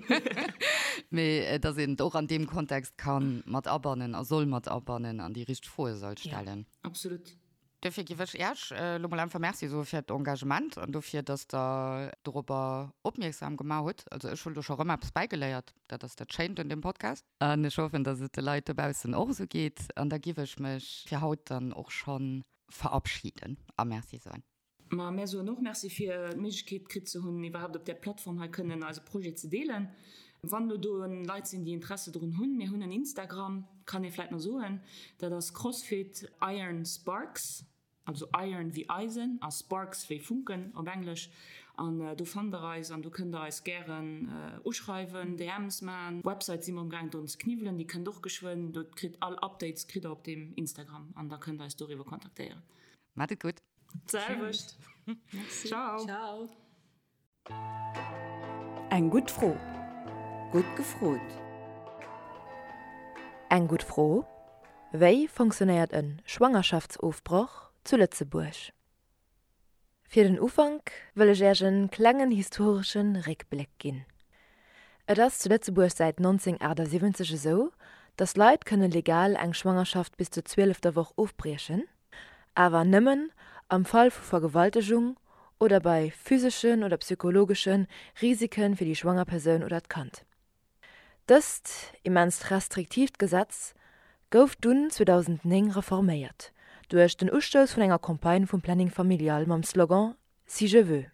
mee dass een et och an deem Kontext ka mat abannen a soll mat abannen an déi richteg Froe soll stellen. Ja, absolut. Dofir géif ech Iech elo mol einfach Merci soe fir d'Engagement an dofir, dass Der dorobber opmierksam gemaach hutt. Also ech hunn do scho rëm eppes bäigeléiert, dat ass dat Schéint un deem Podcast. An ech hoffen, dass et de Leit dobaussen och esou geet. An da giff ech mech fir haut dann och scho verabschieden a Merci soen. Ma mär soen och Merci fir d'Méiglechkeet kritt ze hunn, iwwerhaapt op där Plattform hei kënnen eise Projet ze deelen. Wann elo do Leit sinn, déi Interesse drun hunn, mir hunn en Instagram, kann ee vläit nach soen, dat ass CrossFit Iron Sparks. Also Iron wéi Eisen a Sparks wéi Funken op Englesch. An do fannt der eis an do kënnt der eis gären uschreiwen, DMs man. Website si mer um gaang drun ze kniwwelen, déi kënnt och geschwënn. Do kritt all Updates kritt der op deem Instagram an da kënnt der eis doriwwer kontaktéieren. Maat et gutt. D'selwecht. Ciao. Ciao. Eng gutt Fro. Gutt gefrot. Eng gutt Fro, Wéi fonctionnéiert e Schwangerschaftsofbroch zu Lëtzebuerg? Fir den Ufank wëll ech Äerch en klengen historesche Réckbléck ginn. Et ass zu Lëtzebuerg säit 1978 esou, datt Leit kënne legal eng Schwangerschaft bis zur zwielefter Woch ofbriechen. Awer nëmmen am Fall vu Vergewaltegung oder bei physeschen oder psychologesche Risike fir déi schwanger Persoun oder d'Kand. Dëst immenst restriktiivt Gesetz gouf dunn 2009 reforméiert duerch den Ustouss vun enger Campagne vum Planning Familial mam Slogan Si je veux.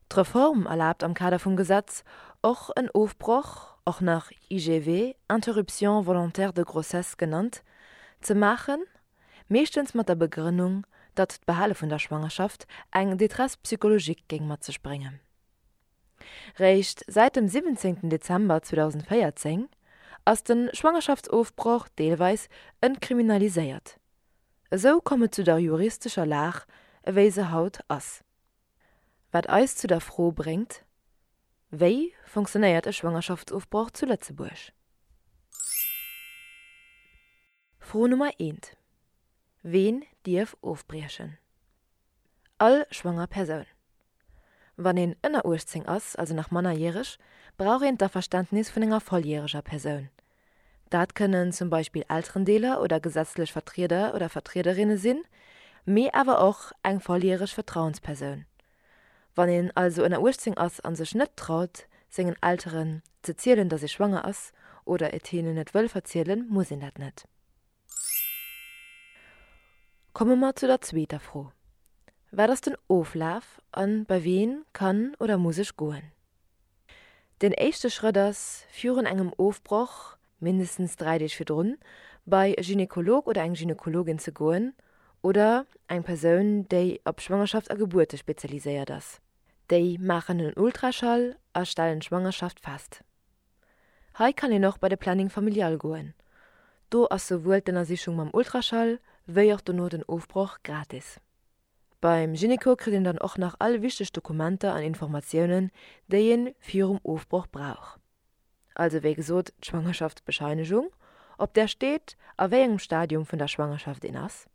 D'Reform erlaabt am Kader vum Gesetz och en Ofbroch, och nach IGV, Interruption volontaire de grossesse genannt, ze maachen, meeschtens mat der Begrënnung, datt d'Behale vun der Schwangerschaft eng Détresse psychologique géing mat sech bréngen. Réischt säit dem 17 Dezember 2014 ass de Schwangerschaftsofbroch deelweis entkriminaliséiert. Esou komm et zu der juristescher Lag ewéi se haut ass. Wat eis zu der Fro bréngt, Wéi fonctionnéiert e Schwangerschaftsofbroch zu Lëtzebuerg? Fro Nummer eent, Ween dierf ofbriechen? All schwanger Persoun. Wann een ënner 18 ass, also nach mannerjäreg, brauch een d'Averständnis vun enger volljäreger Persoun. Dat kënnen zum Beispill Elterendeeler oder gesetzlech Vertrieder oder Vertriederinne sinn, mee awer och eng volljäreg Vertrauenspersoun. Wann een also ënner 18 ass a sech net traut, sengen Elteren ze zielen, datt ee schwanger ass, oder et hinnen net wëll verzielen, muss een dat net. Komme mer zu der zweeter Fro, Wat ass den Oflaf a bei ween kann oder muss ech goen? Den éischte Schrëtt ass, virun engem Ofbroch, mindestens 3 Deeg virdrun, bei e Gynekolog oder eng Gynekologin ze goen oder eng Persoun, déi op Schwangerschaft a Gebuerte spezialiséiert ass. Déi maachen en Ultraschall a stellen d'Schwangerschaft fest. Hei kann een och bei de Planning familial goen. Do ass souwuel d'Ënnersichung mam Ultraschall wéi och dono den Ofbroch gratis. Beim Gynéco kritt een dann och nach all wichteg Dokumenter an Informatiounen, déi een virum Ofbroch brauch. Also wéi gesot d'Schwangerschaftsbescheinegung, op där steet a wéi engem Stadium vun der Schwangerschaft een ass.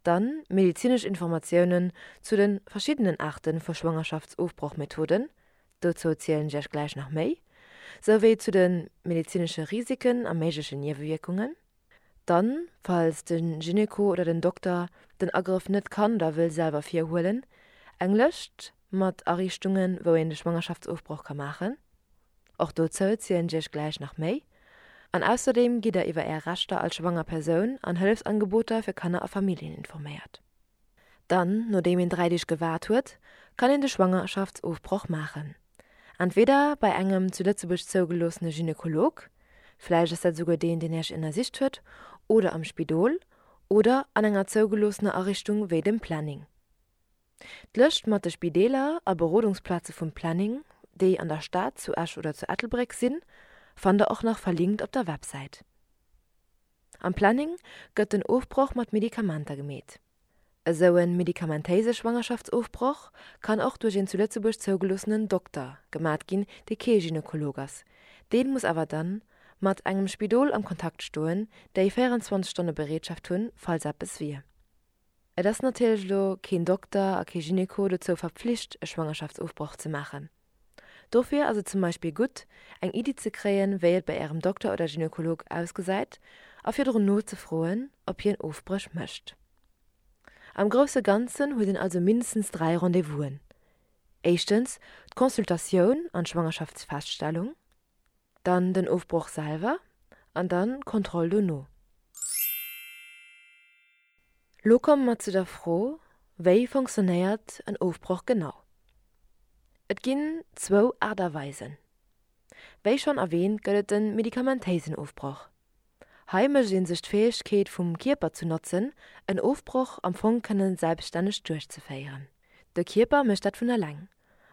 Dann medezinesch Informatiounen zu de verschiddenen Aarte vu Schwangerschaftsofbrochmethoden, dozou zielen ech iech gläich nach méi, souwéi zu de medezinesche Risiken a méiglechen Niewewierkungen. Dann, falls de Gynéco oder den Dokter den Agrëff net kann oder wëll selwer virhuelen, eng Lëscht mat Ariichtungen, wou een de Schwangerschaftsofbroch ka maachen. Och dozou zielen ech iech gläich nach méi. An ausserdeem gitt der iwwer är Rechter als schwanger Persoun an Hëllefsangeboter fir Kanner a Familljen informéiert. Dann, nodeem een 3 Deeg gewaart huet, kann een de Schwangerschaftsofbroch maachen. Entweder bei engem zu Lëtzebuerg zougeloossene Gynekolog, vläicht ass dat esouguer deen, deen Iech ënnersicht huet, oder am Spidol oder an enger zougeloossener Ariichtung wéi dem Planning. D'Lëscht mat de Spideeler a Berodungsplaze vum Planning, déi an der Stad, zu Esch oder zu Ettelbréck sinn, fannt der och nach verlinkt op der Websäit. Am Planning gëtt den Ofbroch mat Medikamenter gemeet. Esou en medikamentéise Schwangerschaftsofbroch kann och duerch een zu Lëtzebuerg zougeloossenen Dokter gemat ginn, dee kee Gynekolog ass. Deen muss awer dann mat engem Spidol am Kontakt stoen, déi 24 Stonne Bereetschaft hunn, falls eppes wier. Et ass natierlech elo keen Dokter a kee Gyneko dozou verpflicht e Schwangerschaftsofbroch ze maachen. Dofir ass et zum Beispill gutt, eng Iddi ze kréien, wéi et bei Ärem Dokter oder Gynekolog ausgesäit a virdrun nozefroen, ob hien Ofbréch mécht. Am grousse Ganzen huet een also mindestens 3 Rendez-vousen, éischtens d'Consultatioun an d'Schwangerschaftsfeststellung, dann den Ofbroch selwer an dann d'Kontroll dono. Lo komme mer zu der Fro, Wéi fonctionnéiert en Ofbroch genau? Et ginn zwou Aart a Weisen. Wéi schonn erwähnt gëtt et de medikamentéisen Ofbroch. Hei mécht ee sech d'Fäegkeet vum Kierper zu notzen, en Ofbroch am Fong kënne selbststänneg duerchzeféieren. De Kierper mécht dat vun eleng,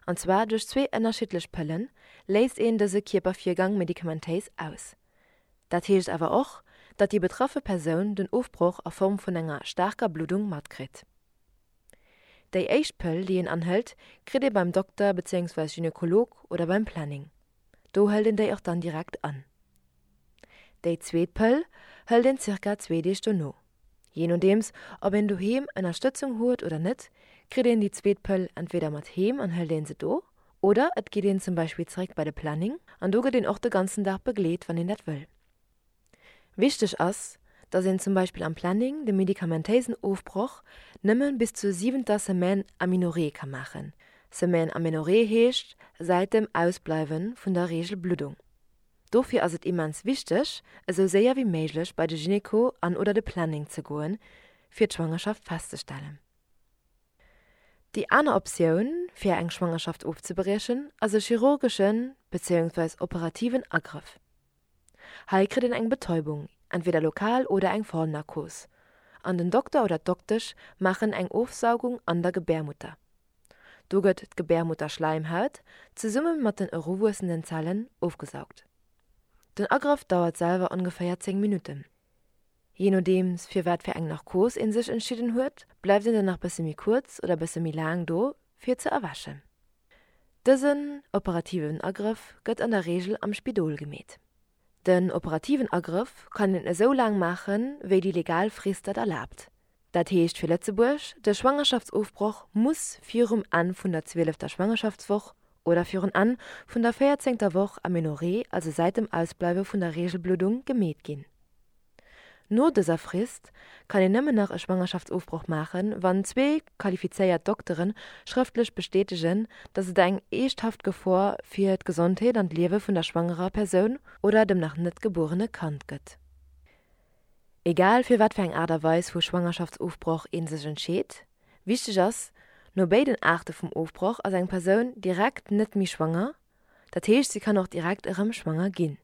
an zwar duerch zwee ënnerschiddlech Pëllen léist een dëse Kierpervirgang medikamentéis aus. Dat heescht awer och, datt déi betraffe Persoun den Ofbroch a Form vun enger staarker Bluddung matkritt. Déi éischt Pëll, déi een anhëlt, kritt ee beim Dokter bezéiungsweis Gynekolog oder beim Planning. Do hëlt een déi och dann direkt an. Déi zweet Pëll hëlt een zirka zwee Deeg dono. Jee nodeems ob een doheem Ënnerstëtzung huet oder net, kritt een déi zweet Pëll entweder mat heem an hëlt een se do, oder et geet een zum Beispill zeréck bei de Planning an do gëtt een och de ganzen Dag begleet, wann een dat wëll. Wichteg ass, dass een zum Beispill am Planning de medikamentéisen Ofbroch nëmme bis zur siwenter Semaine Amenorrhée ka maachen. Semaine Amenorrhée heescht säit dem Ausbleiwe vun der Reegelbluddung. Dofir ass et immens wichteg, esou séier wéi méiglech bei de Gynéco an oder de Planning ze goen, fir d'Schwangerschaft festzestellen. Déi aner Optioun, fir eng Schwangerschaft ofzebriechen, ass e chirurgeschen bezéiungsweis operativen Agrëff. Hei kritt een eng Betäubung. Entweder lokal oder eng Vollnarkos. An den Dokter oder d'Doktesch maachen eng Ofsaugung an der Gebärmutter. Do gëtt d'Gebärmutterschläimhaut zesumme mat den eruwuessenden Zellen ofgesaugt. Den Agrëff dauert selwer ongeféier 10 Minutten. Jee nodeems fir wat fir eng Narkos een sech entschidden huet, bleift een dann nach bësse méi kuerz oder bësse méi laang do fir ze erwächen. Dësen operativen Agrëff gëtt an der Reegel am Spidol gemeet. Den operativen Agrëff kann een esou laang maachen, wéi déi legal Frist dat erlaabt. Dat heescht fir Lëtzebuerg, de Schwangerschaftsofbroch muss virum Enn vun der zwielefter Schwangerschaftswoch oder virun Enn vun der véierzéngter Woch Amenorrhée, also säit dem Ausbleiwe vun der Reegelbluddung, gemeet ginn. No dëser Frist kann een nëmmen nach e Schwangerschaftsofbroch maachen, wann zwee qualifizéiert Doktere schrëftlech bestätegen, datt et eng eeschthaft Gefor fir d'Gesondheet an d'Liewe vun der schwangerer Persoun oder dem nach net gebuerene Kand gëtt. Egal fir wat fir eng Aart a Weis vu Schwangerschaftsofbroch ee sech entscheet, wichteg ass, No béiden Aarte vum Ofbroch ass eng Persoun direkt net méi schwanger, dat heescht si kann och direkt erëm schwanger ginn.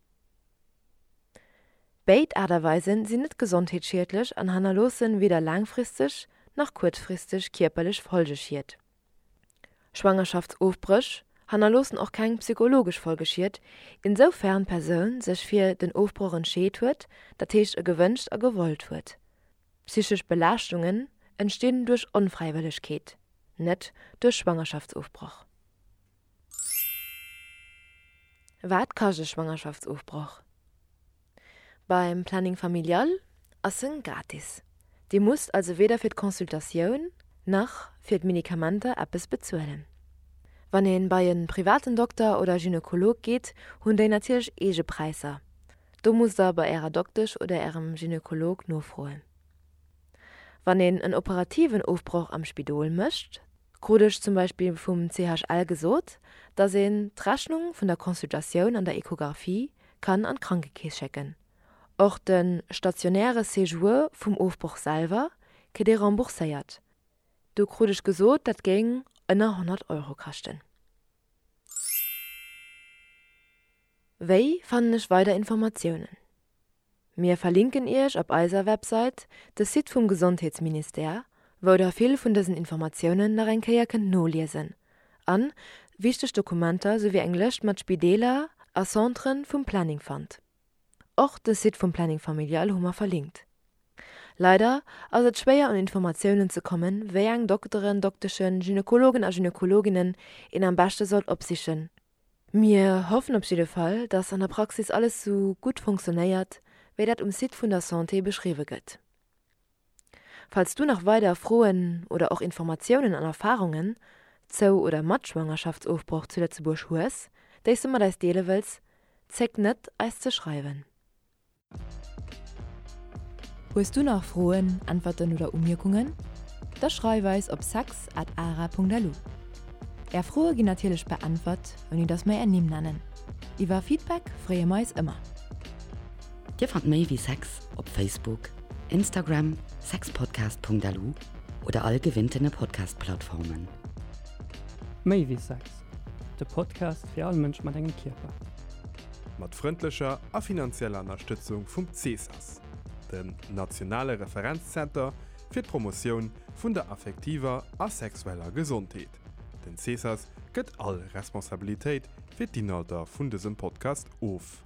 Béid Aart a Weisen sinn net gesondheetsschiedlech an hannerloossen weder laangfristeg nach kuerzfristeg kierperlech Folgeschied. Schwangerschaftsofbréch hannerloossen och keng psychologesch Folgeschied, insoufern d'Persoun sech fir den Ofbroch entscheet huet, dat heescht e gewënscht a gewollt huet. Psychesch Belaaschtungen entstinn duerch Onfräiwëllegkeet, net duerch Schwangerschaftsofbroch. Wat kascht e Schwangerschaftsofbroch? Beim Planning Familial ass en gratis. Dir musst also weder fir d'Consultatioun nach fir d'Medikamenter eppes bezuelen. Wann een bei en privaten Dokter oder Gynekolog geet, hunn déi natierlech eege Präisser. Do musst der bei ärer Doktesch oder ärem Gynekolog nofroen. Wann een en operativen Ofbroch am Spidol mécht, krut ech zum Beispill vum CHL gesot, dass een d'Rechnung vun der Consultatioun an der Echographie kann an d'Krankekeess schécken. Och de stationäre Séjour vum Ofbroch selwer kritt ee rembourséiert. Do krut ech gesot, dat géing ënner 100 Euro kaschten. Wéi fannen ech weider Informatiounen? Mir verlinken Iech op eiser Websait de Site vum Gesondheetsministère, wou der vill vun dësen Informatiounen nach eng Kéier kënnt noliesen an wichteg Dokumenter souwéi eng Lëscht mat Spideeler a Centren vum Planning fannt. Och de Site vum Planning Familial hu mer verlinkt. Leider ass et schwéier un Informatiounen ze kommen, wéi eng Dokteren, Dokteschen, Gynekologen a Gynekologinnen een am beschte sollt opsichen. Mir hoffen op jidde Fall, dass an der Praxis alles sou gutt fonctionnéiert, wéi dat um Site vun der Santé beschriwwe gëtt. Falls du nach weider Froen oder och Informatiounen an Erfarungen zou oder mat Schwangerschaftsofbroch zu Lëtzebuerg hues, déi s du mat eis deele wëlls, zéck net eis ze schreiwen. Hues du nach Froen, Äntwerten oder Umierkungen? Da schreif eis op sex at ara.lu. Är Froe ginn natierlech beäntwert, ouni dass mer är Nimm nennen. Iwwer Feedback freeë mer eis ëmmer. Dir fannt méi wéi Sex op Facebook, Instagram, sexpodcast.lu oder all gewinntene Podcast-Plattformen. Méi wéi Sex, de Podcast fir all Mënsch mat engem Kierper. Mat frëndlecher a finanzieller Ënnerstëtzung vum CESAS, dem nationale Referenzzenter fir d'Promotioun vun der affektiver a sexueller Gesondheet. Den CESAS gëtt all Responsabilitéit fir d'Inhalter vun dësem Podcast of.